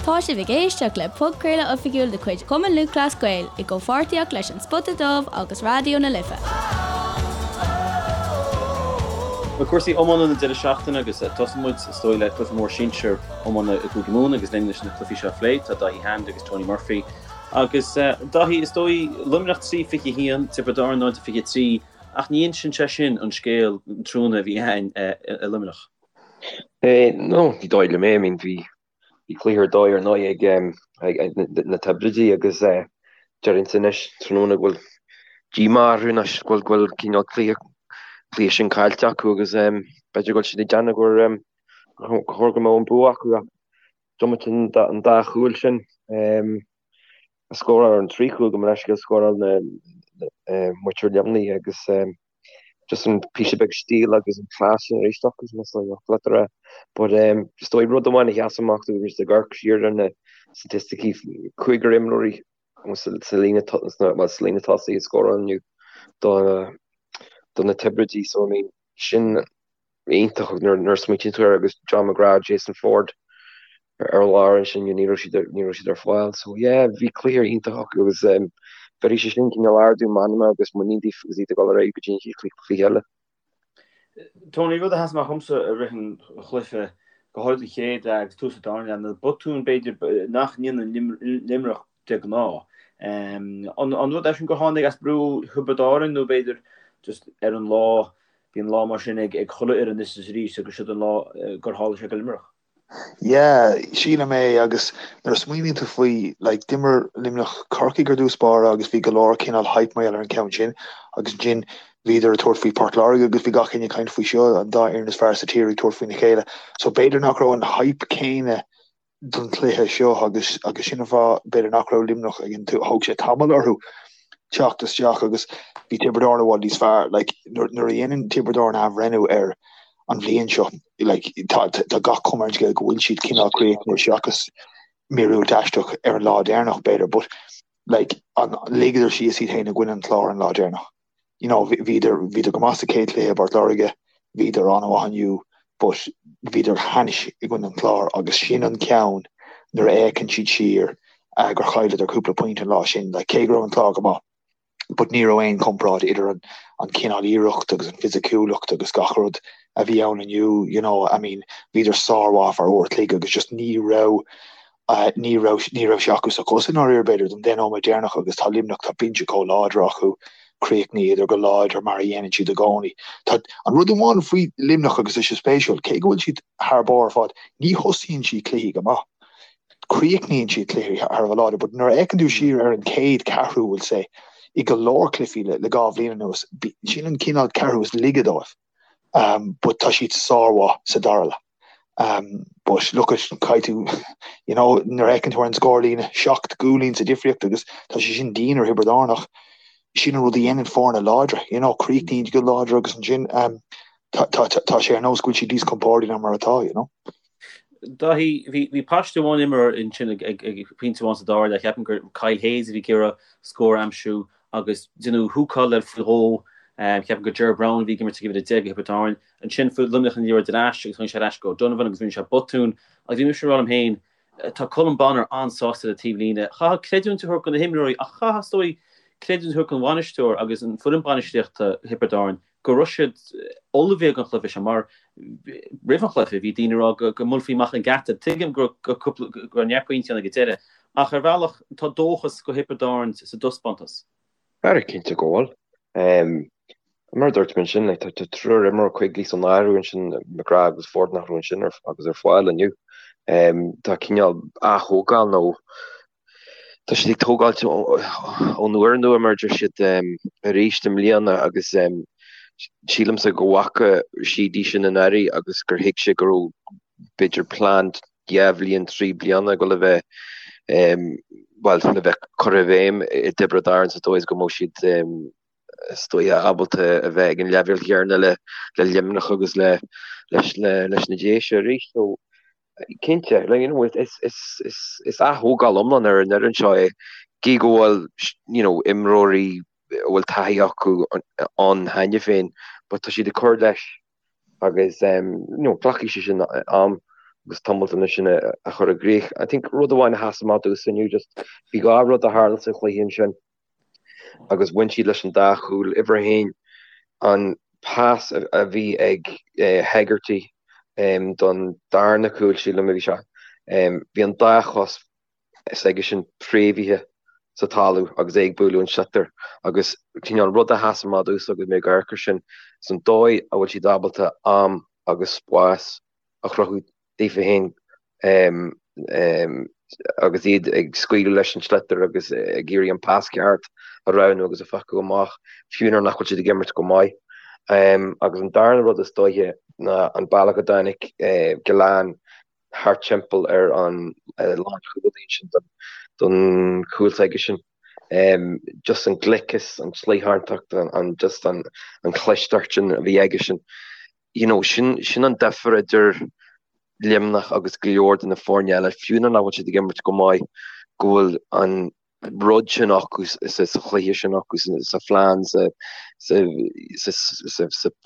Tá sibh ag éisteacht le podchraoladh oifigiúil de chuid Chumann Lúthchleas Gael i gcomhpháirtíocht leis An Spota Dubh agus Raidió na Life. Bhuel, cúrsaí iomána na deireadh seachtaine agus tosóidh muid, is dóigh, le cluiche mór sinsir iomána i gCúige Mumhan agus linn leis na cluichí seo a phlé tá Dáithí Hand agus Tony Murphy. Agus Dáithí, is dóigh, Luimneach 3-21, Tiobraid Árann 0-23 ach ní insíonn sé sin an scéal an tráthnóna a bhí againn i Luimneach. No, ní dóigh liom é, I mean bhí Bhí cluiche ar dóigh ar ndóigh ag na Tiobraidigh agus déarfainnse anois tráthnóna go bhfuil díomá orthu anois go bhfuil cineál cluiche cluiche sin caillte acu agus b'fhéidir go bhfuil siad ag déanamh gur chóir go mbeadh an bua acu ach diomaite an dá chúl sin a scóráil an 3 chúl gabh mo leithscéal scóráil na muintir Luimnigh agus just an píosa beag stíl agus an class sin arís acu sin is dóigh leat a rá. But um, is dóigh rud amháin a sheas amach dúinn ag amharc siar ar na staitisticí cúigear imreoirí sa sa líne well, sa líne tosaigh a scóráil inniu do do na Tiobraidigh so I mean sin iontach nuair nuair a smaoitíonn tú air agus John McGrath, Jason Forde ar lár ansin ní raibh siad ní raibh siad ar fáil. So yeah, bhí cluiche iontach acu agus um, bheir sé sin cineál ardú meanma agus muinín daofa agus iad ag dul ar aghaidh go dtí an chéad chluiche eile. Tony, rud a sheas amach dhomsa i rith an chluiche, go háirid an chéad leath agus tús an dara leath, na botúin b'fhéidir nach ndéanann Luimneach de ghnáth. An rud é sin gur tháinig as brú Thiobraid Árann nó b'fhéidir just ar an lá, bíonn lá mar sin ag chuile fhoireann anois is arís agus siod an lá gur tharla sé go Luimneach. Yeah, sílim é agus nuair a smaoiníonn tú faoi, like, d'imir Luimneach Corcaigh ar dtús báire agus bhí go leor cineál hype mar gheall ar an ceann sin agus ansin bhíodar ag tabhairt faoi Port Láirge agus bhí gach éinne ag caint faoi seo, an dá fhoireann is fearr sa tír ag tabhairt faoina chéile. So b'fhéidir nach raibh an hype céanna don chluiche seo agus agus sin an fáth b'fhéidir nach raibh Luimneach ag an thóg sé tamall orthu teacht isteach agus bhí Tiobraid Árann i bhfad níos fearr. Like, nuair, nuair a dhéanann Tiobraid Árann athbhreithniú ar an bhliain seo, like, tá, tá gach cuma ar an scéal go bhfuil siad cineál críochnaithe seachas míorúilt aisteach ar an lá deireanach b'fhéidir, but like, an, ligeadar síos iad féin i gcoinne an Chláir an lá deireanach. You know, bhíodar, bhíodar go maith sa chéad chluiche i bPort Láirge, bhíodar an-mhaith inniu, but bhíodar thainis i gcoinne an Chláir agus sin an ceann nuair a fhéachann siad siar uh, gur chailleadar cúpla pointe an lá sin, like, cé go raibh an Clár go maith. But ní raibh aon chomparáid idir an, an cineál iarracht agus an fisiciúlacht agus gach rud a bhí ann inniu, you know, I mean, bhíodar sármhaith ar uair a chloig agus just ní raibh Ní raibh, ní raibh sé acu sa chos i ndáiríre, b'fhéidir, don deich nóiméad deireanach agus tá Luimneach, tá binse chomh láidir acu, chríochnaíodar go láidir mar a dhéanann siad i gcónaí. Tá an rud amháin faoi Luimneach agus tá sé spéisiúil, cé go bhfuil siad thar barr ar fad, ní thosaíonn siad cluichí go maith. Críochnaíonn siad cluichí thar a bheith láidir, but nuair a fhéachann tú siar ar an chéad ceathrú, we'll say, i go leor cluichí le le 2 bhliain anuas, sin an cineál ceathrú is laige dóibh. But tá siad sármhaith sa dara leath. But look at, caithfidh tú, you know, nuair a fheiceann tú ar an scórlíne, 7 gcúilín sa difríocht agus tá sé sin dian ar Thiobraid Árann ach sin an rud a dhéanann foirne láidre, you know, críochnaíonn go láidir agus ansin tá, tá, tá sé ar nós go bhfuil siad níos compórdaí ná mar atá, you know. Dáithí, bhí, bhí paiste amháin imeartha ansin ag, ag, ag pointe amháin sa dara leath, ceapaim gur Kyle Hayes a bhí ag iarraidh scór a aimsiú agus deineadh húcáil air faoi dhó, ceapaim gur Ger Browne a bhí ag imirt ag uimhir 10 do Thiobraid Árann. Ansin fuair Luimneach an liathróid ar ais agus tháinig sé ar ais go O'Donovan agus rinne sé botún agus bhí mise ag rá liom féin, tá Colm Bonnar an-sásta ar an taobhlíne. Chaithfeá creidiúint a thabhairt do na himreoirí ach chaithfeá is dóigh creidiúint a thabhairt don bhainisteoir agus an foireann bainistíochta Thiobraid Árann go raibh siad ullmhaithe don chluiche seo mar roimh an chluiche bhí daoine ag rá go mbuailfí amach an geata. Tuigim go raibh neart pointí ann ag an deireadh ach ar bhealach tá dóchas do Thiobraid Árann sa dtaispeántas. Ara cinnte go bhfuil. Mar a dúirt mé ansin, like, tá triúr imreoir Quigley san áireamh ansin, McGrath agus Forde nach raibh ansin agus ar fáil inniu. Tá cineál ath-thógáil nó tá siad ag tógáilt ón úrnua mar a deir siad arís i mbliana agus sílimse go bhfaca Sheedy sin anuraidh agus gur thuig sé go raibh b'fhéidir plean 2 bhliain, 3 bliana ag dul a bheith, bhuel, le bheith curtha i bhfeidhm i dTiobraid Árann sa dóigh is go mbeadh siad, is dóigh, ábalta a bheith ag an leibhéal chéanna le Luimneach agus le, leis, leis na Déise arís. So, cinnte, like, you know, is, is, is, is ath-thógáil iomlán ar an fhoireann seo é, gí go bhfuil, you know, imreoirí a bhfuil taithí acu ann cheana féin, but tá siad ag cur leis. agus you know glacfaidh sé sin am. agus tomaltanna sin a chur i gcrích. I think rud amháin a sheas amach domhsa inniu just bhí dhá rud a tharla sa chluiche ansin agus bhain siad leis an dá chúl. Uimhir a haon, an pas a bhí ag Hegarty don darna cúl, sílim a bhí sé, bhí an dá chos s'aigesean préamhaithe sa talamh agus é ag bualadh an sliotar agus cineál rud a sheas amach domhsa agus mé ag amharc air sin is an dóigh a bhfuil siad ábalta am agus spás a chruthú daofa féin agus iad ag scaoileadh leis an sliotar agus ag iarraidh an pas ceart a roghnú agus a phiocadh amach, fiú nuair nach bhfuil siad ag imirt go maith. Agus an darna rud is dóiche ná an bealach a dtáinig Gillane thart timpeall ar an lánchúlaí ansin don chúl s'aigesean. Just an gliceas, an tsliothántacht, an just an chlisteacht sin a bhí aigesean. You know, sin sin an difear idir Luimneach agus go leor de na foirne eile, fiú nuair nach bhfuil siad ag imirt go maith, go bhfuil an rud sin acu sa chluiche sin acu, sa phlean, sa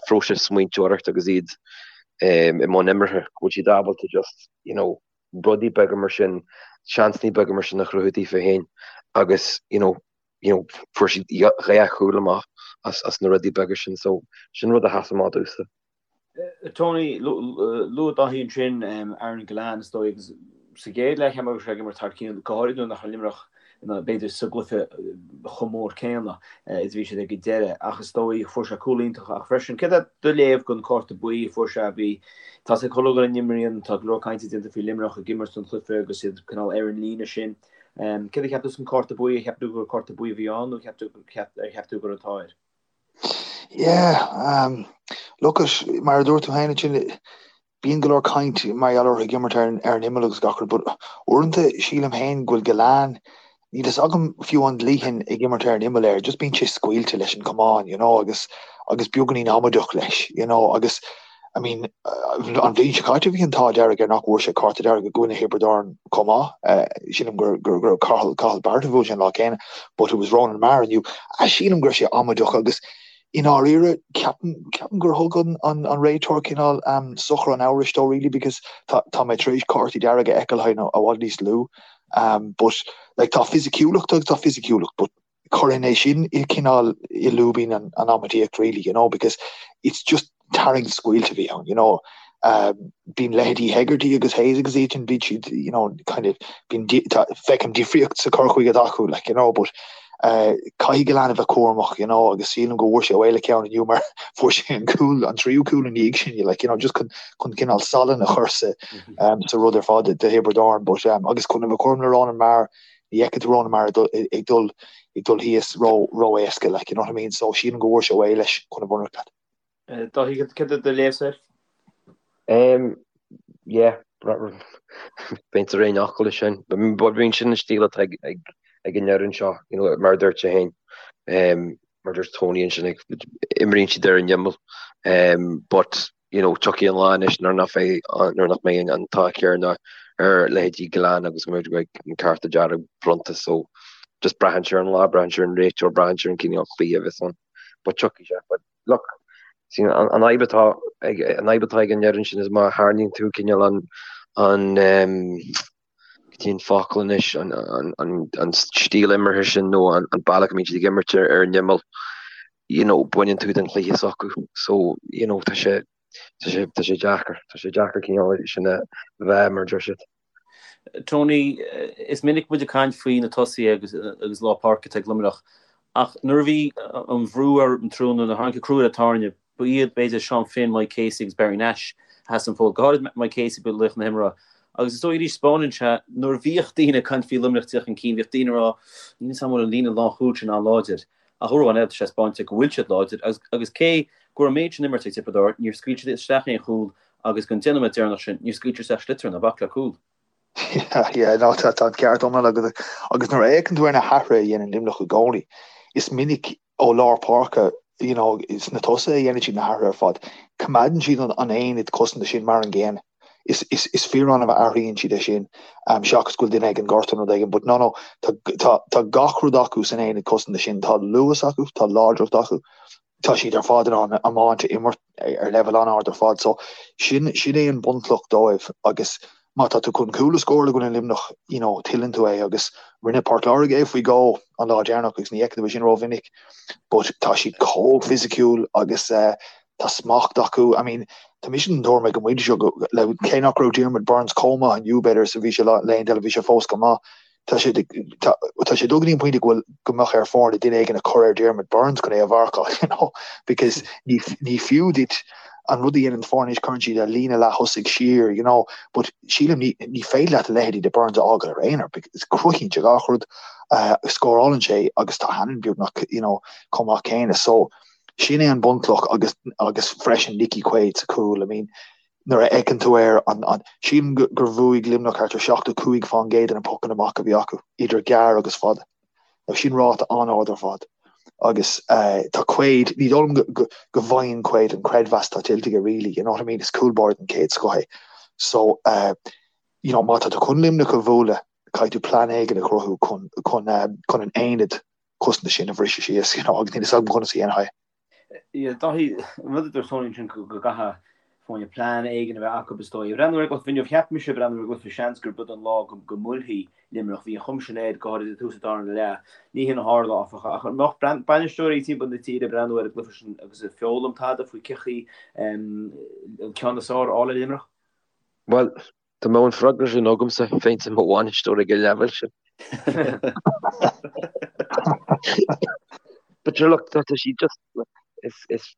phróiseas smaointeoireachta agus iad i mbun imeartha, go bhfuil siad ábalta just, you know, rudaí beaga mar sin, seansanna beaga mar sin a chruthú daofa féin agus, you know, you know, fuair siad dhá chúl amach as na rudaí beaga sin, so sin rud a sheas amach domhsa. Tony, luaigh Dáithí ansin Aaron Gillane is dóigh agus sa gcéad leath cheap mé go raibh sé ag imirt thar cionn, go háirid nuair nach raibh Luimneach b'fhéidir sa gcluiche chomh mór céanna is a bhí siad ag an deireadh ach is dóigh fuair sé cúl iontach ach freisin céard é do léamh den cárta buí a fuair sé bhí tá sé chuile dhuine n-imríonn tá go leor cainte déanta faoi Luimneach ag imirt an chluiche agus iad cineál ar an líne sin. Céard a cheap tú san cárta buí ar cheap tú gur cárta buí a bhí ann nó ar cheap tú go raibh an t-ádh air? Yeah, um, look at, mar a dúirt tú féin ansin, bíonn go leor caint mar gheall orthu ag imirt ar, ar an imeall agus gach rud, but uaireanta sílim féin go bhfuil Gillane, níl fhios agam fiú an dlítheann ag imirt ar an imeall air, just bíonn sé scaoilte leis an camán, you know, agus, agus beagáinín amaideach leis, you know, agus I mean, an bhliain seo caite bhí an t-ádh dearg air nach bhfuair sé cárta dearg i gcoinne Thiobraid Árann chomh maith. Sílim gur gur gur Cathal Cathal Barrett a bhuail sé an lá céanna, but it was Ronan Maher inniu. Sílim go raibh sé amaideach agus i ndáiríre ceapaim ceapaim gur thug an an an réiteoir cineál um, sochar an amhrais dó really because tá tá mé tar éis cártaí dearga a fheiceáil i bhfad níos lú. Um, but like tá fisiciúlacht agus tá fisiciúlacht, but Chuirfinn é sin i cineál i lúibín an amaidíocht really, you know, because it's just tarraingt scaoilte a bhí ann, you know. Um, bíonn leithéidí Hegarty agus Hayes agus iad sin, bíonn siad, you know, kind of, bíonn, feicim difríocht sa cur chuige atá acu, like, you know, but uh, caithfidh Gillane a bheith cúramach, you know, agus sílim go bhfuair sé away le ceann inniu mar fuair sé an cúl, an tríú cúl ina dhiaidh sin, like, you know, just chun, chun cineál salann a chur sa, um, sa rud ar fad do Thiobraid Árann, but, um, agus chun a bheith cúram le Ronan Maher, Ní fheicfidh tú Ronan Maher ag dul ag dul thíos ró ró-éasca like, you know what I mean? So sílim go bhfuair sé away leis chun a bheith ionraic leat. Dáithí, céard é do léamh air? Um, yeah, bheinn ar aon fhocal leis sin. But bíonn sin an stíl atá ag, ag, ag an fhoireann seo, you know, mar a dúirt sé féin. Um, mar a dúirt Tony ansin, imríonn siad ar an imeall. Um, but you know, tiocfaidh an lá anois nuair nach bheidh, nuair nach mbeidh an t-ádh céanna ar leithéidí Gillane agus go mbeidh an cárta dearg bronnta so just braitheann sé ar an lá, braitheann sé ar an réiteoir, braitheann sé ar an cineál cluiche a bheas ann. But tiocfaidh sé. But look, see, an, an fhadhb atá ag, an fhadhb atá ag an fhoireann sin is má tharraingíonn tú cineál an, an, um, cad é an focal anois, an, an, an, an stíl imeartha sin nó an, an bealach a mbíonn siad ag imirt ar, ar an imeall, you know, baineann tú den chluiche s'acu. So, you know, tá sé, tá sé, tá sé deacair, tá sé deacair cineál sin a bheith mar a deir siad. Tony, is minic muid ag caint faoi na tosaithe agus, agus lár páirce atá ag Luimneach, ach nuair a bhí an bhrú ar an trúna, nuair a tháinig an crú ar an tairne, ba iad, b'fhéidir, Seán Finn, Mike Casey agus Barry Nash a sheas an fód, go háirid Mike Casey, ba laoch na himeartha. Agus is dóigh arís, spáineann sé, nuair a bhíodh daoine ag caint faoi Luimneach tíocht chun cinn, bhíodh daoine ag rá, níl 'fhios a'm an bhfuil an líne lánchúil sin an-láidir. Ach uair amháin eile, tá sé spáinte go bhfuil siad láidir agus agus cé go raibh an méid sin imeartha ag Tiobraid Árann, níor scaoil siad isteach aon chúl agus don 10 nóiméad deireanach sin, níor scaoil siad isteach sliotar ná bac le cúl. Yeah, yeah, no, tá tá an ceart iomlán agat. Agus nuair a fhéachann tú ar na hathruithe a dhéanann Luimneach i gcónaí, is minic ó lár páirce, you know, sna tosaithe a dhéanann siad na hathruithe ar fad. Coimeádann siad an an aonad cosanta sin mar an gcéanna. Is is is fíor-annamh a athraíonn siad é sin, seachas go bhfuil duine ag an gortú nó rud éigin. But no, no, tá tá tá gach rud acu san aonad cosanta sin. Tá luas acu, tá láidreacht acu. Tá siad ar fad in ann iomáint a imirt ar leibhéal an-ard ar fad so sin sin é an bunchloch dóibh agus má tá tú chun cúl a scóráil i gcoinne Luimneach you know tuilleann tú é agus rinne Port Láirge é faoi dhó an lá deireanach agus ní fheiceann tú é sin rómhinic but tá siad chomh fisiciúil agus eh, tá smacht acu I mean tá mise den tuairim ag an bpointe seo go le cé nach raibh Diarmuid Byrnes chomh maith inniu b'fhéidir is a bhí sé laethanta eile bhí sé fós go maith Tá sé tá sé dul go dtí an pointe go bhfuil go mbeadh ar foirne duine éigin a chur ar Diarmuid Byrnes chun é a mharcáil, you know, because ní ní fiú duit an rud a dhéanann foirne anois cuireann siad a líne leath-thosaigh siar, you know, but sílim ní ní féidir leat a leithéidí de Byrnes a fhágáil ar aonar because cruthaíonn sé gach rud, uh, scórálann sé agus tá Hannon beagnach, you know, chomh maith céanna. So sin é an bunchloch agus agus freisin Nicky Quaid sa chúl, I mean, Nuair a fheiceann tú air, an, an, sílim gur bhuaigh Luimneach thart ar 75% de na pocanna amach a bhí acu, idir gearr agus fada. Now sin ráta an-ard ar fad. Agus tá Quaid, ní dóigh liom go, go, go bhfaigheann Quaid an creidmheas atá tuillte aige really, you know what I mean, is cúl báire den chéad scoth é. So, you know, má tá tú chun Luimneach a bhualadh, caithfidh tú plean éigin a chruthú chun, chun, chun an aonad cosanta sin a bhriseadh síos, you know, agus níl a fhios agam conas a dhéanfaí é. Dáithí, an rud a dúirt Tony ansin go gcaithfidh foirne plean éigin a bheith acu is dóigh. Ag breathnú ar an gcluiche inniu, cheap mise ag breathnú ar an gcluiche seans gurb iod an lá go mbuailfidh Luimneach. Bhí an chuma sin air, go háirid ag tús an darna leath. Ní hin a tharla, áfach. Ach an mbeadh bainisteoirí timpeall na tíre ag breathnú ar an gcluiche sin agus ag foghlaim tada faoi cén chaoi an ceann is fearr a fháil ar Luimneach? Bhuel, Dá mbeadh an freagra sin agamsa, bheinnse i mo bhainisteoir ag an leibhéal sin. But sure look, tá siad just, is, is,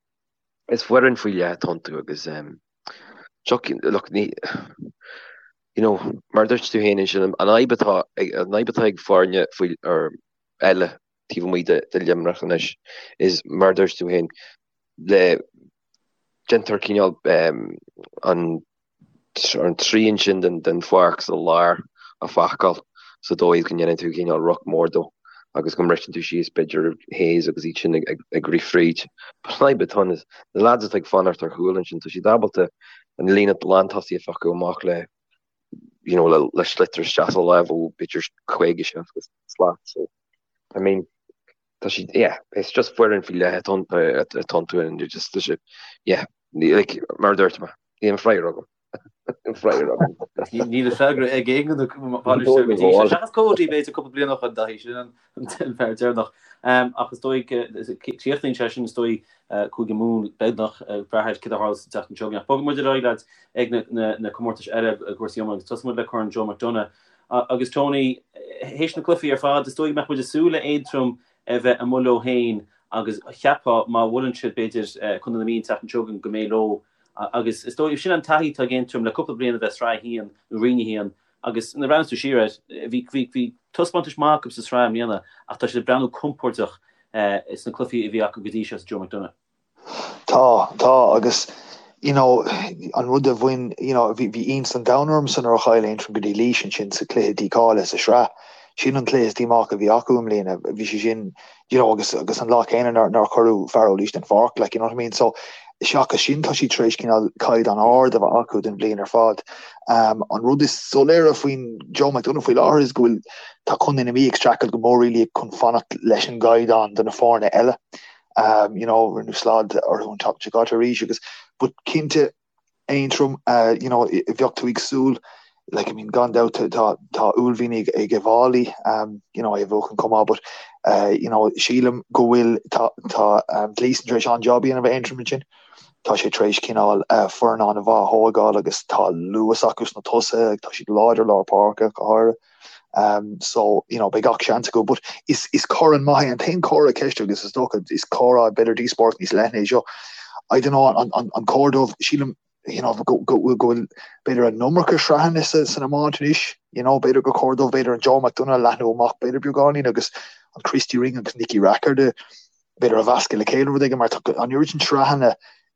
is foireann faoi leith atá iontu agus um, look, ní, you know, mar a dúirt tú féin ansin, an fhadhb atá, an fhadhb atá ag foirne faoi, or eile taobh amuigh de, de Luimneach anois is mar a dúirt tú féin, le déantar cineál um, an an trian sin den pháirc sa lár a phacáil sa dóigh go ndéanann tú cineál ruc mór dó agus go mbriseann tú síos b'fhéidir Hayes agus iad sin ag rith fríd. But an fhadhb atá ann is na lads atá ag fanacht ar chúl ansin, tá siad ábalta an líne lántosaí a phiocadh amach le you know, le, le sliotar isteach sa lámh ó b'fhéidir 50, 60 slat. So, I mean, tá siad, yeah, it's just foireann faoi leith atá iontu and you're just, tá siad, yeah, like, mar a dúirt mé, níl an freagra agam. Níl an freagra agam. Níl an freagra ag aon duine bainisteoir go dtí seo. Seachas Cody b'fhéidir cúpla bliain ó shin Dáithí, sin an fear deireanach. Ach is dóigh, críochnaíonn sé sin is dóigh Cúige Mumhan beagnach ag brath ar céard a tharla sa tseachtain seo chugainn. Ach bogfaidh muid ar aghaidh lads ag na comórtais eile i gcúrsaí iomána agus tosóidh muid le Corn Joe McDonagh. Agus Tony, théis na cluichí ar fad, is dóigh go mbeadh muid ag súil le Aontroim a bheith amuigh leo féin agus cheapfá má bhuaileann siad b'fhéidir Contae na Mí an tseachtain seo chugainn go mbeidh leo agus is dóigh sin an taithí atá ag Aontroim le cúpla bliain a bheith sraith a haon nó roinn a haon agus nuair a bhreathnaíonn tú siar air bhí bhí bhí taispeántais maith acu sa sraith i mbliana ach tá siad ag breathnú compordach sna cluichí a bhí acu go dtí seo sa Joe McDonagh. Tá, tá, agus you know, an rud a bhain, you know, bhí, bhí iontas an domhain ormsa nuair a chaill Aontroim go dtí Laois ansin sa chluiche dícháilithe sa sraith. Sin an cluiche is díomách a bhí acu i mbliana. Bhí sé sin, you know, agus, agus an lá céanna nár, nár cuireadh fear ó Laois den pháirc, like, you know what I mean? So, seachas sin, tá siad tar éis cineál caighdeán ard a bheith acu don bhliain ar fad. Um, an rud is soiléire faoin Joe McDonagh faoi láthair is go bhfuil, tá Contae na Mí ag streachailt go mór really chun fanacht leis an gcaighdeán do na foirne eile. Um, you know, rinneadh slad orthu an tseachtain seo caite arís agus but cinnte Aontroim, uh, you know, bheadh tú ag súil like, I mean, gan dabht tá tá uaillmhian ag ag Uíbh Fhailí, um, you know, é a bhuachan chomh maith, but uh, you know, sílim go bhfuil tá tá um, Gleeson tar éis an-job a dhéanamh ar Aontroim ansin. Tá sé tar éis cineál uh, foireann an-mhaith a thógáil agus tá luas acu sna tosaithe, tá siad láidir lár páirce go háirithe. Um, so, you know, beidh gach seans acu, but is, is corn maith é an t-aon chomhartha ceiste agus is dócha is comhrá b'fhéidir díospóireacht níos leithne é seo. I don't know, an, an, an cóir dóibh, sílim, you know, go, go, go bhfuil b'fhéidir an iomarca sraitheanna sa, san iomáint anois, you know, b'fhéidir gur chóir dóibh b'fhéidir an Joe McDonagh a leathnú amach b'fhéidir beagáinín agus an Christy Ring agus Nicky Rackard b'fhéidir a mheascadh le chéile rud éigin mar tá an oiread sin sraitheanna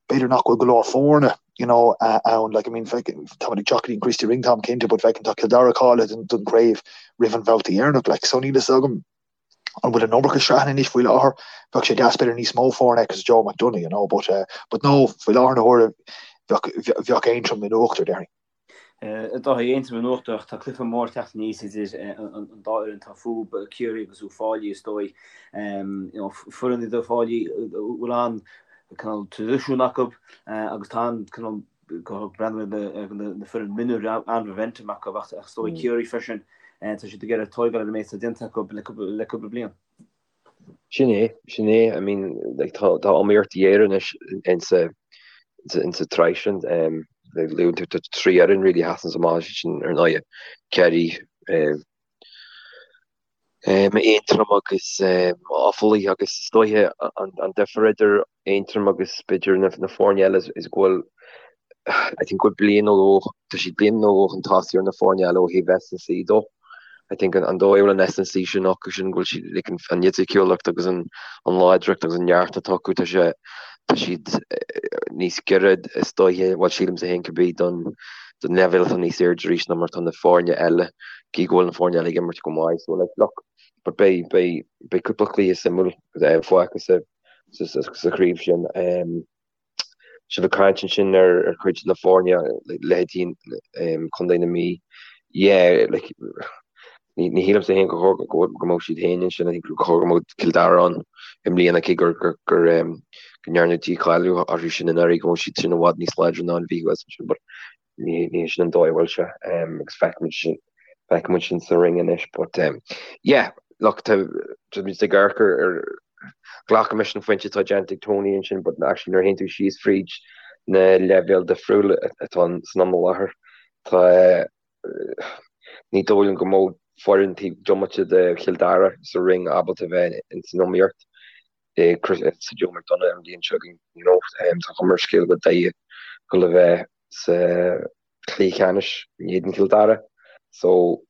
b'fhéidir nach bhfuil go leor foirne you know ann like I mean táimid ag teacht go dtí an Christy Ring táim cinnte but feicim tá Cill Dara cáilithe don, don chraobh roimh an bhabhta dheireanach like so níl fhios agam an bhfuil an iomarca sraitheanna anois faoi láthair bheadh sé deas b'fhéidir níos mó foirne agus Joe McDonagh you know but uh, but no faoi láthair na huaire bheadh bheadh Aontroim in uachtar déarfainn. Dáithí, Aontroim in uachtar ach tá cluiche mór ag teacht aníos idir an dá fhoireann atá fúthu, Ciarraí agus Uíbh Fhailí is dóigh. Foireann iad Uíbh Fhailí a bhfuil an cineál traidisiún acu agus tá an cineál breathnú ar na foireann mionúir an-mhomentum acu ach is dóigh Ciarraí freisin tá siad ag iarraidh tóigeáil ar an méid atá déanta acu le cúpla bliain. Sin é, sin é. I mean, like, tá, tá iomaíocht ghéar anois insa, insa, insa tsraith sin. Um, like, luann tú, tá trí fhoireann really a sheasann amach sin ar ndóigh. Ciarraí, um, um, Aontroim agus um, Offaly agus is dóiche an, an difear idir Aontroim agus b'fhéidir na, na foirne eile is, is go bhfuil I think go bhfuil bliain nó dhó, tá siad bliain nó dhó chun tosaigh ar na foirne eile ó thaobh S&C dó. I think an, an dóigh a bhfuil an S&C sin acu sin go bhfuil siad like, an, an fhisiciúlacht agus an, an láidreacht agus an neart atá acu, tá sé, tá siad níos giorra is dóiche, bhuel sílimse féin cibé don, don leibhéal atá níos airde arís ná mar atá na foirne eile, cé go bhfuil na foirne eile ag imirt go maith. So like, look, but beidh, beidh, beidh cúpla cluiche suimiúil fágtha sa, sa, sa, sa chraobh sin. Um, Sibh ag caint ansin ar chuid de na foirne, leithéidí Contae na Mí. Yeah, like, ní shílimse féin gur chóir go mbeadh siad féin ansin, I think gur chóir go mbeadh Cill Dara ann i mbliana, cé gur go ndearnadh dícháiliú orthu sin anuraidh, go bhfuil siad sin i bhfad níos láidre ná an Mhí thuas ansin, but ní hé sin an dóigh a bhfuil sé, agus feicfimid sin, feicfimid sin sa ring anois, but yeah, look, tá muid ag amharc ar, glacaimis an phointe atá déanta ag Tony ansin, but actually nuair a théann tú síos fríd na leibhéil difriúla atá san am i láthair, tá, ní dóigh liom go mbeadh foireann taobh diomaite de Chill Dara sa ring ábalta bheith ins an iomaíocht. sa Joe McDonagh an bhliain seo chugainn, you know, tá cuma ar an scéal go bhfuil Doire ag dul a bheith sa chluiche ceannais in éadan Chill Dara so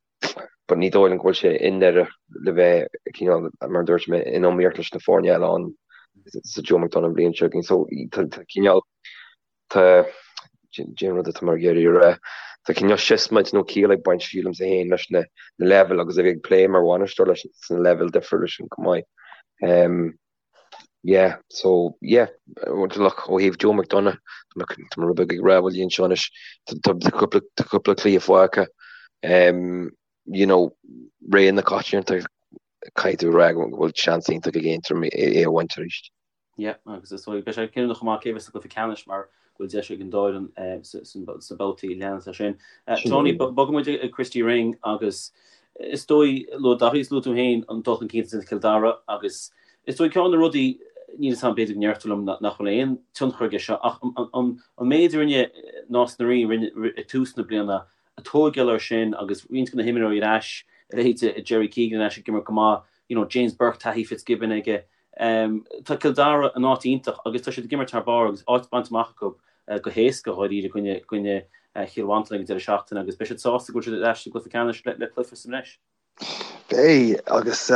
but ní dóigh liom go bhfuil sé i nDoire le bheith cineál mar a dúirt mé in iomaíocht leis na foirne eile ann sa Joe McDonagh an bhliain seo chugainn so tá cineál tá cén rud atá mé ag iarraidh a rá tá cineál siosmaid nó ciall ag baint sílimse féin leis na leibhéil agus a bheith ag plé mar bhainisteoir leis na leibhéil difriúla sin chomh maith. Um, Yeah, so yeah, look, ó thaobh Joe McDonagh, tá mé rud beag ag rámhaillí anseo anois, tá cúpla cluiche fágtha, um, you know, ré na coitianta, caithfidh tú a rá go bhfuil seans iontach ag Aontroim é a bhaint arís. Yeah, agus is dóigh, beidh sé cinniúnach chomh maith cé bheas sa gcluiche ceannais mar go bhfuil deis ag an dá fhoireann sna babhtaí a leanas as sin. Tony, bogfaidh muid ag Christy Ring agus Is dóigh, luaigh Daithí is luaigh tú féin an dul chun cinn atá déanta ag Cill Dara agus is dóigh ceann de na rudaí, níl 'fhios a'm, b'fhéidir go ndéarfá liom nach bhfuil aon tionchar aige seo ach an méid a rinne Nás na Rí ag tús na bliana, ag tóigeáil air sin agus roinnt de na himreoirí ar ais, a leithéid de Jerry Keegan ar ais ag imirt go maith, you know James Burke, taithí Fitzgibbon aige. Tá Cill Dara in áit iontach agus tá siad ag imirt thar barr agus áit bainte amach acu go héasca dháiríre i gcoinne Chill Mhantáin ag an deireadh seachtaine agus beidh siad sásta go bhfuil siad ar ais sa gcluiche ceannais le cluiche sa mbreis. Beidh, agus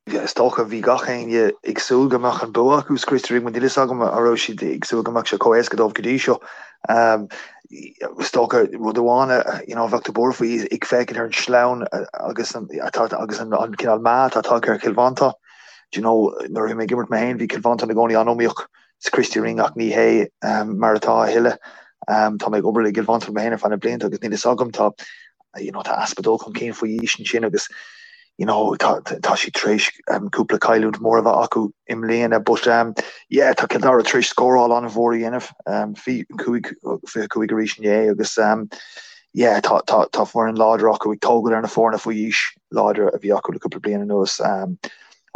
is dócha bhí gach éinne ag súil go mbeadh an bua acu sa Christy Ring, níl fhios agam an raibh siad ag súil go mbeadh sé chomh héasca dóibh go dtí seo. Is dócha rud amháin a you know bheadh tú buartha faoi ag féachaint ar an sleamhain agus an atá agus an cineál meath atá tagtha ar Chill Mhantáin. Do you know nuair a bhí mé ag imirt mé féin bhí Cill Mhantáin i gcónaí an-iomaíoch sa Christy Ring ach ní hé mar atá a thuilleadh. Tá mé ag obair le Cill Mhantáin mé féin ar feadh na blianta agus níl fhios agam tá you know tá easpa dul chun cinn faoi aois ansin agus you know tá tá siad tar éis cúpla cailliúint mór a bheith acu i mbliana but um, yeah tá Cill Dara tar éis scóráil an-mhór a dhéanamh um, 25 25 arís inné agus um, yeah tá tá tá foireann láidir acu ag tógáil ar na foirne faoi aois láidir a bhí acu le cúpla bliain anuas um,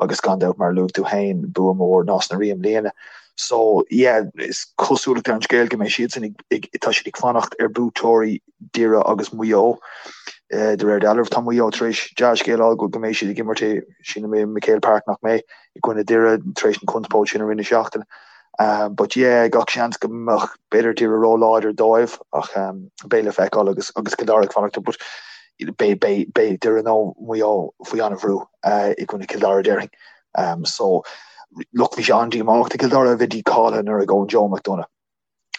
agus gan dabht mar a luaigh tú féin, bua mór Nás na Rí i mbliana. So yeah, is cosúlacht ar an scéal go mbeidh siadsan ag, ag, tá siad ag fanacht ar buaiteoirí Doire agus Maigh Eo. De réir dealraimh tá Maigh Eo tar éis dea-scéal a fháil go mbeidh siad ag imirt i, sílim i MacHale Park nach mbeidh, i gcoinne Doire tar éis an conspóid sin i rith na seachtaine. But yeah, gach seans go mbeadh b'fhéidir Doire ró-láidir dóibh ach beidh le feiceáil agus agus Cill Dara ag fanacht but beidh beidh beidh Doire nó Maigh Eo faoi an-bhrú i gcoinne Cill Dara déarfainn. So look bhí sé an-díomách do Chill Dara a bheith dícháilithe anuraidh ón Joe McDonagh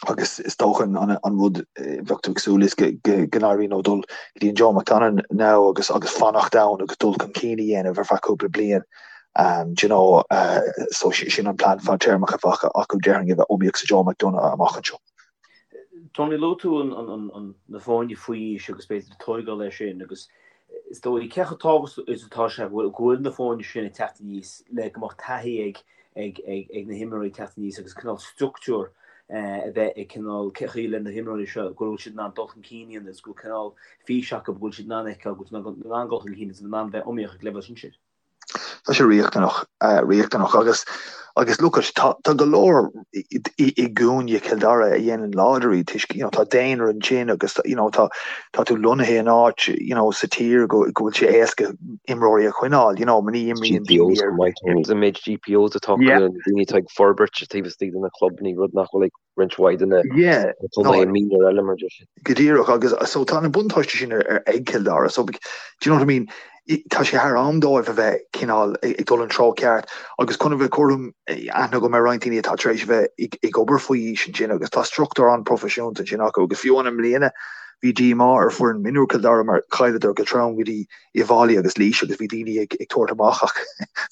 agus is dócha an rud bheadh tú ag súil is go n-éiríonn leo dul go dtí an Joe McDonagh now agus agus fanacht ann agus dul chun cinn a dhéanamh ar feadh cúpla bliain. Um, do you know, uh, so sin an plean fadtéarmach a bheadh acu déarfainn a bheith iomaíoch sa Joe McDonagh amach anseo. Tony, luaigh tú na foirne faoi aois agus b'fhéidir tóigeáil leis sin agus is dóigh cé chomh tábhachtach is atá sé go bhfuil na foirne sin ag teacht aníos le go mbeadh taithí ag ag na himreoirí ag teacht aníos agus cineál structúr a bheith ag cineál cé chaoi le na himreoirí seo go bhfuil siad in ann dul chun cinn a dhéanamh agus go bhfuil cineál fís acu go bhfuil siad in ann feiceáil go bhfuil siad in ann dul chun cinn agus in ann bheith iomaíoch ag leibhéal sinsir. Tá sé riachtanach, riachtanach agus agus look at tá tá go leor i i gcúinne Chill Dara a dhéanann láidir iad toisc you know tá daonra ansin agus you know tá tá tú lonnaithe in áit you know sa tír go go bhfuil sé éasca imreoirí a choinneáil you know ní imríonn daoine ar An méid GPOs atá acu na daoine atá ag forbairt taobh istigh de na clubanna rud nach bhfuil ag roinnt mhaith de na contaetha mionúir eile mar sin. Go díreach agus so tá na buntáistí sin ar ag Cill Dara so do you know what I mean tá sé thar am dóibh a bheith cineál ag dul an treo ceart agus chun a bheith cothrom aithne agam ar roinnt daoine atá tar éis a bheith ag obair faoi aois ansin agus tá struchtúr an-proifisiúnta ansin acu agus fiú amháin i mbliana bhí díomá ar foireann mionúir Cill Dara mar chailleadar go trom go dtí Uíbh Fhailí agus Laois agus bhí daoine ag tabhairt amach ach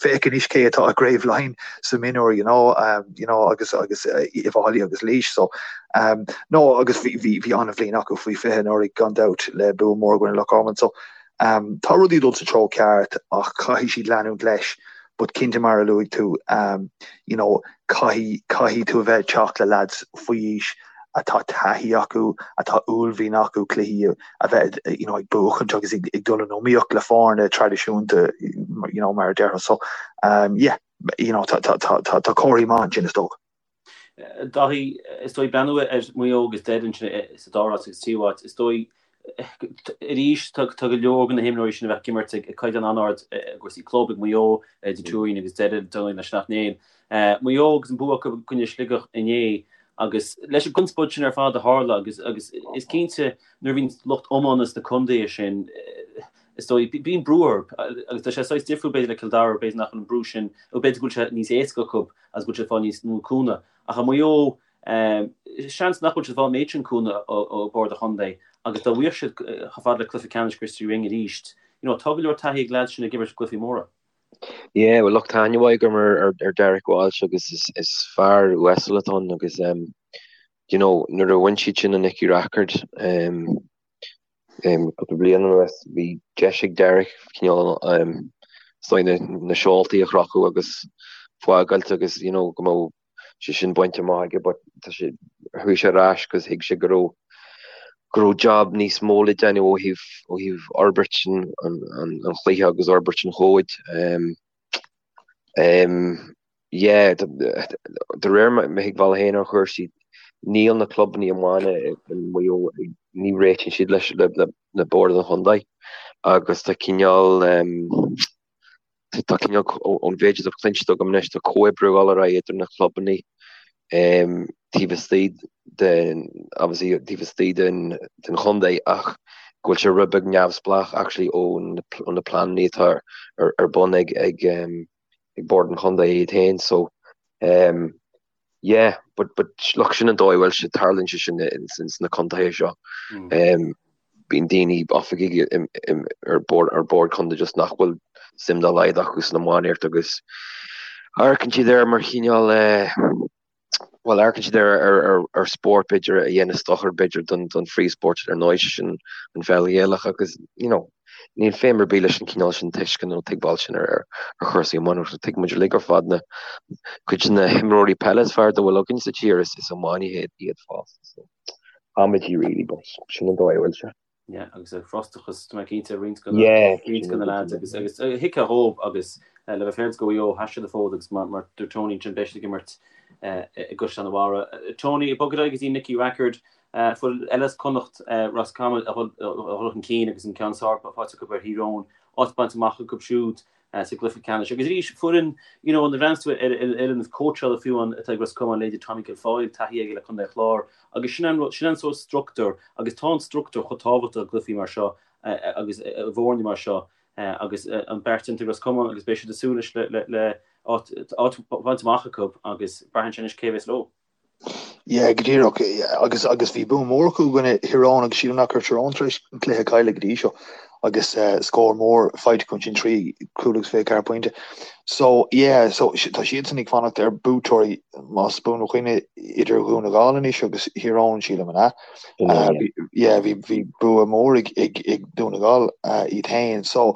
féach anois cé atá i gCraobh Laighean sa mionúr you know um, you know agus agus Uíbh Fhailí agus Laois so um, no agus bhí bhí bhí an-bhliain acu faoi 20 anuraidh gan dabht le bua mór i gcoinne Loch Garman so um, tá rudaí ag dul sa treo ceart ach caithfidh siad leanúint leis but cinnte mar a luaigh tú um, you know caithfidh caithfidh tú a bheith ag teacht le lads faoi aois atá taithí acu, atá uaillmhian acu cluichí a bheith you know, ag buachaint agus ag, ag dul in iomaíocht le foirne traidisiúnta you know, mar a déarfá. So um, yeah, you know, tá, tá, tá, tá, tá comharthaí maith ansin is dócha. Dáithí, is dóigh breathnú ar Mhaigh Eo agus Doire ansin sa dara háit agus tríú háit, is dóigh arís tá go leor de na himreoirí sin a bheith ag imirt ag caighdeán an-ard i gcúrsaí club ag Maigh Eo, idir Tuairín agus Doire, Donny leis Sleacht Néill. Maigh Eo agus an bua acu i gcoinne Sligeach inné agus leis an gconspóid sin ar fad a tharla agus agus is cinnte nuair a bhíonn lucht iomána sna contaetha sin is dóigh bíonn brú orthu agus tá sé saghas difriúil b'fhéidir le Cill Dara b'fhéidir nach bhfuil an brú sin nó b'fhéidir go bhfuil sé níos éasca acu agus go bhfuil siad ag fáil níos mó cúnamh ach i Maigh Eo seans nach bhfuil siad ag fáil an méid sin cúnamh ó bhord an chontae agus dá bhfaigheadh siad chomh fada le cluiche ceannais Christy Ring arís you know tá go leor taithí ag leaids sin ag imirt i gcluichí móra. Yeah, well look, tá aithne mhaith agam ar, ar, ar Derek Walsh agus is, is fear uasal atá ann agus um, you know, nuair a bhain siad sin an Nicky Rackard um, um, cúpla bliain anuas, bhí deis ag Derek cineál um, is dóigh na, na seoltaí a chrochadh agus fágáilt agus you know, go mbeadh sé sin bainte amach aige but tá sé, chuaigh sé ar ais agus thuig sé go raibh go raibh job níos mó le déanamh ó thaobh ó thaobh fhorbairt an an an an chluiche agus fhorbairt an chóid. Um, um, yeah, de réir mo thuigbheála féin ar chúrsaí, níl na clubanna iomána i Maigh Eo, ní réitíonn siad leis le, le, le bord an chontae agus tá cineál um, Tá cineál, ón mhéid atá cluinste agam anois, tá comhoibriú ag dul ar aghaidh idir na clubanna taobh istigh den, obviously taobh istigh den den chontae ach go bhfuil sé rud beag neamhspleách actually ó na pleananna atá ar ar bun ag ag ag bord an chontae iad féin so Yeah, but but look sin an dóigh a bhfuil sé, tarlaíonn sé sin ins na contaetha seo. Um, bíonn daoine oifigigh ar bord ar bord contae just nach bhfuil suim dá laghad acu san iománaíocht agus amharcann siad air mar chineál eh, bhuel amharcann siad air ar ar ar spórt b'fhéidir a dhéanas dochar b'fhéidir don don phríomhspórt ar ndóigh sé sin an pheil Ghaelach agus you know Níl feidhm ar bith leis an chineál sin tuisceana nó tuigbheáil sin ar chúrsaí iománaíochta. Tuigeann muid uilig ar fad na cuid de na himreoirí peile is fearr dá bhfuil againn sa tír, is iománaithe iad fosta. So, amaidí really, but sin an dóigh a bhfuil sé. Yeah, agus an frustrachas, tá mé cinnte, roinnt de na Yeah, roinnt de na lads agus agus thuigfeá dhóibh agus le bheith féaráilte do Mhaigh Eo, sheas siad an fód agus mar mar dúirt Tony ansin beidh siad ag imirt i gCaisleán an Bharraigh. Tony, ag bogadh ar aghaidh go dtí Nicky Rackard, Foireann eile as Connacht, Ros Comáin, a dhul chun cinn agus an ceann is fearr faighte acu ar Thír Eoghain, áit bainte amach acu siúd sa gcluiche ceannais. Agus arís, foireann, you know, nuair a bhreathnaíonns tú ar an fhoireann cóitseála fiú amháin atá ag Ros Comáin, leithéidí Tommy Guilfoyle, taithí aige le Contae an Chláir, agus sin an rud, sin an sórt struchtúr, agus tá an struchtúr chomh tábhachtach i gcluichí mar seo agus i bhfoirne mar seo agus an beart déanta ag Ros Comáin agus beidh siad ag súil anois le áit bainte amach acu agus braitheann sé anois cé a bheas leo. Yeah, go díreach. Agus agus bhí bua mór acu i gcoinne Thír Eoghain agus sílim nach raibh Tír Eoghain tar éis an cluiche a chailleadh go dtí seo. agus scór mór faighte acu ansin, 3 cúl agus 24 pointe. So, yeah, so tá siadsan ag fanacht ar buaiteoirí, más buan mo chuimhne, idir Dhún na nGall anois agus Thír Eoghain, sílim, an ea? Yeah, bhí bhí bua mór ag ag ag Dún na nGall iad féin. So,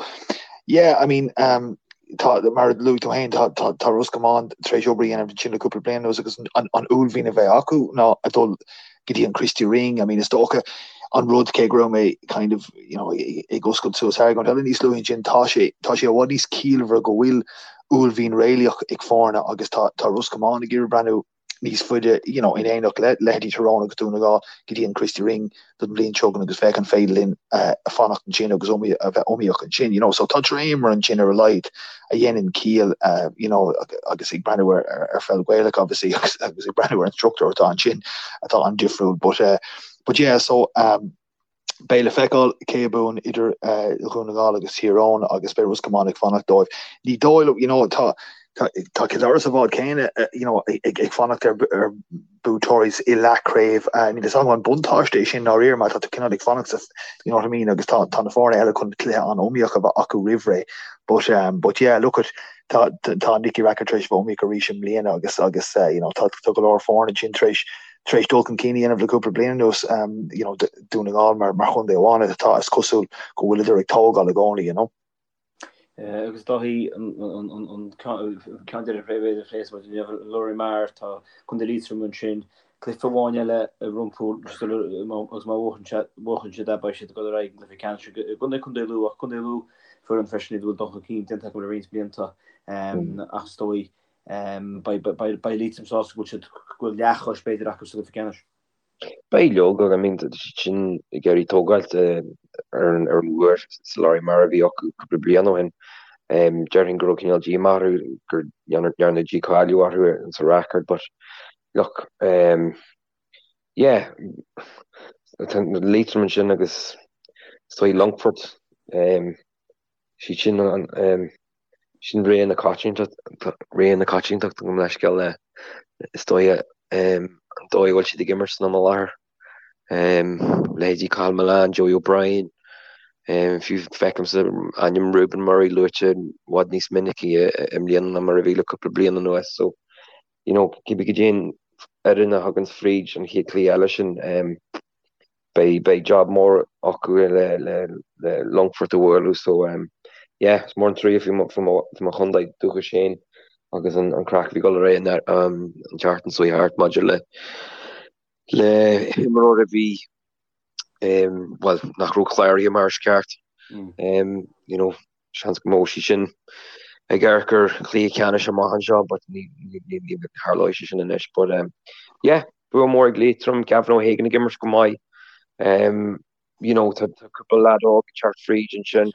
yeah, I mean, um, tá, mar a luaigh tú féin, tá, tá, tá Ros Comáin tar éis obair a dhéanamh ansin le cúpla bliain anuas agus an, an uaillmhian a bheith acu ná a dul go dtí an Christy Ring. I mean, is dócha an rud cé go raibh mé kind of, you know, ag oscailt suas argóint eile níos luaithe ansin, tá sé, tá sé i bhfad níos ciallmhaire go bhfuil uaillmhian réalaíoch ag foirne agus tá, tá Ros Comáin ag iarraidh breathnú níos faide, you know, in éineacht le leithéidí Tyrone agus Dún na nGall go dtí an Christy Ring don bhliain seo chugainn agus féach an féidir linn fanacht ansin agus a bheith iomaíoch ansin, you know. So tá dréimire ansin ar a laghad a dhéanann ciall, you know, agus ag breathnú ar ar pheil Ghaelach obviously agus agus ag breathnú ar an struchtúr atá ansin atá an-difriúil but uh, but yeah so um, Beidh le feiceáil cé a bhuann idir Dhún na nGall agus Thír Eoghain agus beidh Ros Comáin ag fanacht dóibh. Ní dóigh liom, you know, tá tá Cill Dara sa bhád céanna, you know, ag ag fanacht ar ar buaiteoirí i leathchraobh. Níl fhios agam an buntáiste é sin i ndáiríre mar tá tú cineál ag fanacht sa, you know what I mean, agus tá tá na foirne eile chun cluiche an-iomaíoch a bheith acu roimh ré. But um, but yeah, look at tá tá Nicky Rackard tar éis bheith iomaíoch arís i mbliana agus agus you know, tá tá go leor foirne ansin tar éis tar éis dul chun cinn a dhéanamh le cúpla bliain anuas, you know, Dún na nGall mar mar chontae amháin atá, is cosúil go bhfuileadar ag tógáil i gcónaí, you know. Agus Dáithí, an ceann deiridh a phléifeas muid inniu, Lory Meagher, tá Contae Liatroma ansin, cluiche amháin eile rompu agus má bhuachann siad é beidh siad ag dul ar aghaidh an gcluiche ceannais i gcoinne Contae Lú ach Contae Lú foireann freisin iad a bhfuil dul chun cinn déanta acu le roinnt blianta ach is dóigh Beidh Liatroim sásta go bhfuil siad, go bhfuil leathchois b'fhéidir acu sa gcluiche ceannais. Beidh leoga, I mean, tá siad sin ag iarraidh tógáilt ar an ar an bhua sa Lory Meagher a bhí acu cúpla bliain ó shin. Déarfainn go raibh cineál díomá orthu gur ndearnadh dícháiliú orthu sa Rackard but look, yeah, tá Liatroim ansin agus is dóigh Longfort, siad sin an sin ré na coitiantachta, ré na coitiantachta gabh mo leithscéal le is dóigh an dóigh a bhfuil siad ag imirt san am i láthair. Leithéidí Cathal Mullane, Joey O'Brien, fiú feicimse ainm Reuben Murray luaite i bhfad níos minicí i mbliana ná mar a bhí le cúpla bliain anuas so you know cibé cad é an fhoireann a thagann fríd an chéad chluiche eile sin beidh beidh job mór acu le le le Longfort a bhualadh so um, yeah, is mór an trua faoi mo faoi mo faoi mo chontae dúchais féin agus an an craic a bhí ag dul ar aghaidh an um, an tseachtain seo thart maidir le le himreoir a bhí um, well nach raibh cláraithe mar is ceart mm. um, you know, seans go mbeadh siad sin ag amharc ar chluiche ceannais amach anseo but ní ní tharlóidh sé sin anois but um, yeah bua mór ag Liatroim, Gavin O'Hagan ag imirt go maith um, you know, tá cúpla leaid óg ag teacht fríd ansin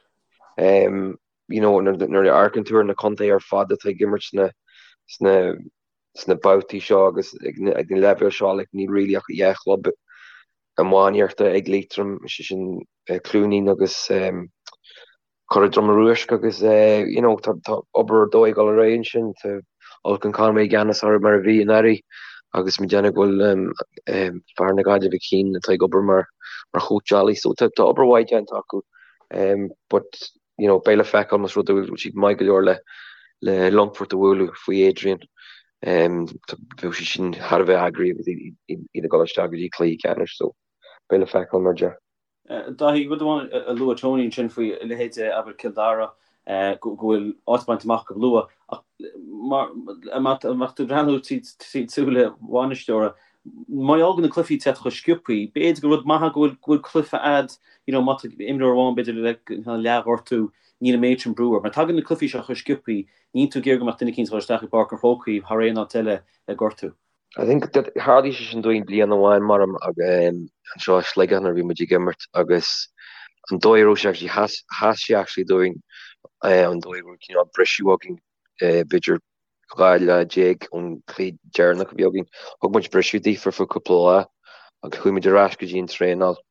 um, you know, nuair a amharcann tú ar na contaetha ar fad atá ag imirt sna sna sna babhtaí seo agus ag na leibhéil seo like, níl really ach dhá chlub iománaíochta ag Liatroim, sé sin Cluainín agus um, Cora Droma Ruaisc agus you know tá tá obair ar dóigh ag dul ar aghaidh ansin, tá Olcan Conway i gceannas orthu mar a bhí anuraidh agus mé ag déanamh go bhfuil fear na Gaillimhe Keane atá ag obair mar mar chóitseálaí so tá tá obair mhaith déanta acu but you know beidh le feiceáil más rud é go bhfuil siad maith go leor le le Longfort a bhualadh faoi Adrian bheadh siad sin thar a bheith eagraithe agus iad ag dul isteach go dtí cluiche ceannais so beidh le feiceáil mar a deir. Dáithí, rud amháin a luaigh Tony ansin faoi leithéide, abair, Cill Dara, go bhfuil áit bainte amach acu luath, ach má mbeadh tú ag breathnú trí súile bhainisteora, mar gheall go na cluichí ag teacht chomh sciobthaí, b'fhéidir gur rud maith go bhfuil cluiche a'd, you know, má tá imreoir amháin b'fhéidir le leathghortú, níl an méid sin brú air. Mar tagann na cluichí seo chomh sciobthaí, níl tú ag iarraidh go mbeadh duine eicínt ag dul isteach i bPáirc an Chrócaigh thar aon áit eile le gortú. I think that tharlaigh sé sin dúinn bliain amháin mar anseo i Sligeach nuair a bhí muid ag imirt agus an dóigh a raibh sé actually sheas sheas sé actually dúinn an dóigh a raibh cineál briseadh againn b'fhéidir 12 lá ón chluiche deireanach a bhí againn. Thug muid briseadh daofa ar feadh cúpla lá agus chuaigh muid ar ais go dtí an traenáil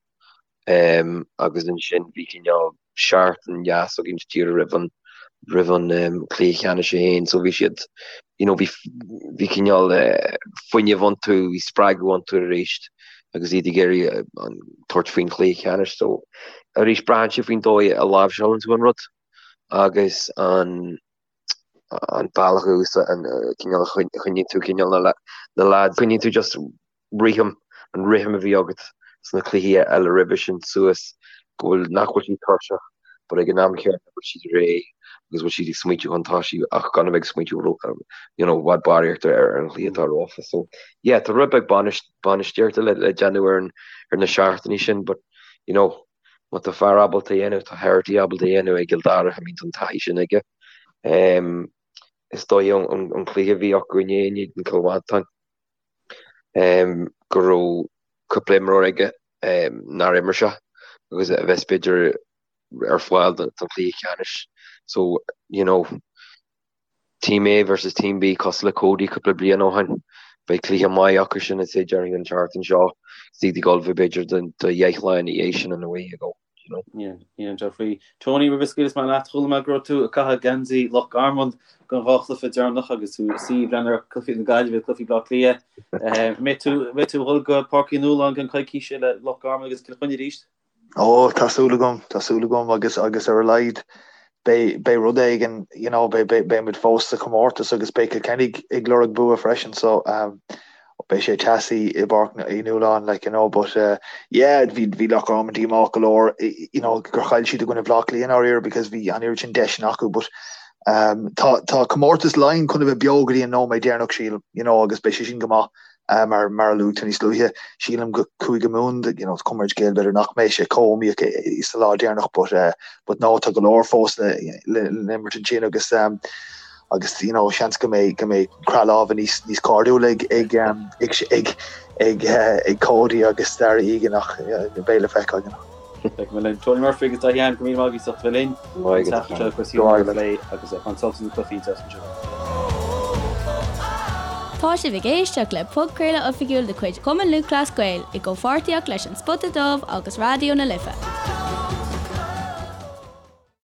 agus ansin bhí cineál seachtain dheas againn díreach roimh an roimh an cluiche ceannais é féin so bhí siad you know bhí bhí cineál fuinneamh iontu, bhí spreagadh iontu arís. agus iad ag iarraidh tabhairt faoin chluiche ceannais. So arís braitheann sé faoin dóigh a láimhseálann tú an rud agus an an bealach a an cineál a choinníonn tú cineál na na lads, coinníonn tú just rithim, an rithim a bhí agat sna cluichí eile roimhe sin suas go bhfuil, nach bhfuil siad tuirseach but ag an am chéanna go bhfuil siad réidh agus bhfuil siad ag smaointiú chun tosaigh ach gan a bheith ag smaointiú you know, i bhfad barraíocht ar an chluiche atá rompu. So yeah, tá rud beag bainistíochta le, le déanamh ar, an, ar na seachtainí sin but you know, má tá fear ábalta a dhéanamh, tá Herity ábalta a dhéanamh ag Cill Dara, I mean, tá an taithí sin aige. Um, is dóigh an, an cluiche a bhí acu inné in éadan Cill Mhantáin. go raibh cúpla imreoir aige nár imir sé agus a bheas b'fhéidir ar fáil don chluiche ceannais. So, you know, Team A versus Team B cosúil le Cody cúpla bliain ó shin. Beidh cluiche maith acu sin I'd say déarfainn an tseachtain seo. Is iad ag ullmhú b'fhéidir do dheich lá ina dhiaidh sin in a way you go. you know. Yeah, yeah, Geoffrey. Tony, roimh a scaoilfeas mé leat, chuala mé go raibh tú ag caitheamh geansaí Loch Garman don dhá chluiche deireanach agus tú ag suí ag breathnú ar cluichí na Gaillimhe, cluichí Bhaile Átha Cliath. An mbeidh tú, mbeidh tú ag dul go Páirc Uí Nualláin i gceann coicíse le Loch Garman agus Cill Chainnigh arís? Ó, tá súil agam, tá súil agam agus agus ar a laghad beidh beidh rud éigin, you know, beidh beidh beidh muid fós sa chomórtas agus beidh Cill Chainnigh ag lorg bua freisin so um, beidh sé teasaí i bPáirc Uí Nualláin like you know but uh, yeah bhí bhí Loch Garman díomách go leor you know gur chaill siad i gcoinne Bhaile Átha Cliath i ndáiríre because bhí an oiread sin deiseanna acu but um, tá tá comórtas Laighean chun a bheith beo go dtí an nóiméad deireanach sílim you know agus beidh sé sin go maith uh, mar mar a luaigh tú níos luaithe sílim go Cúige Mumhan you know cuma ar an scéal b'fhéidir nach mbeidh sé chomh iomaíoch sa lá deireanach but uh, but no tá go leor fós le le le imirt ansin agus um, agus you know seans go mbeidh go mbeidh croitheadh láimhe níos níos cairdiúla ag ag um, ag ag ag uh, ag Cody agus Darragh Egan ach uh, beidh le feiceáil you know. Beidh mé linn. Tony Murphy agus Daithí Ahern go míle maith agaibh as ucht a bheith linn. An tseachtain seo cúrsaí iomána a phlé agus ag baint sult as na cluichí an tseachtain seo. Tá sibh ag éisteacht le podchraoladh oifigiúil de chuid Chumann Lúthchleas Gael i gcomhpháirtíocht leis An Spota Dubh agus Raidió na Life.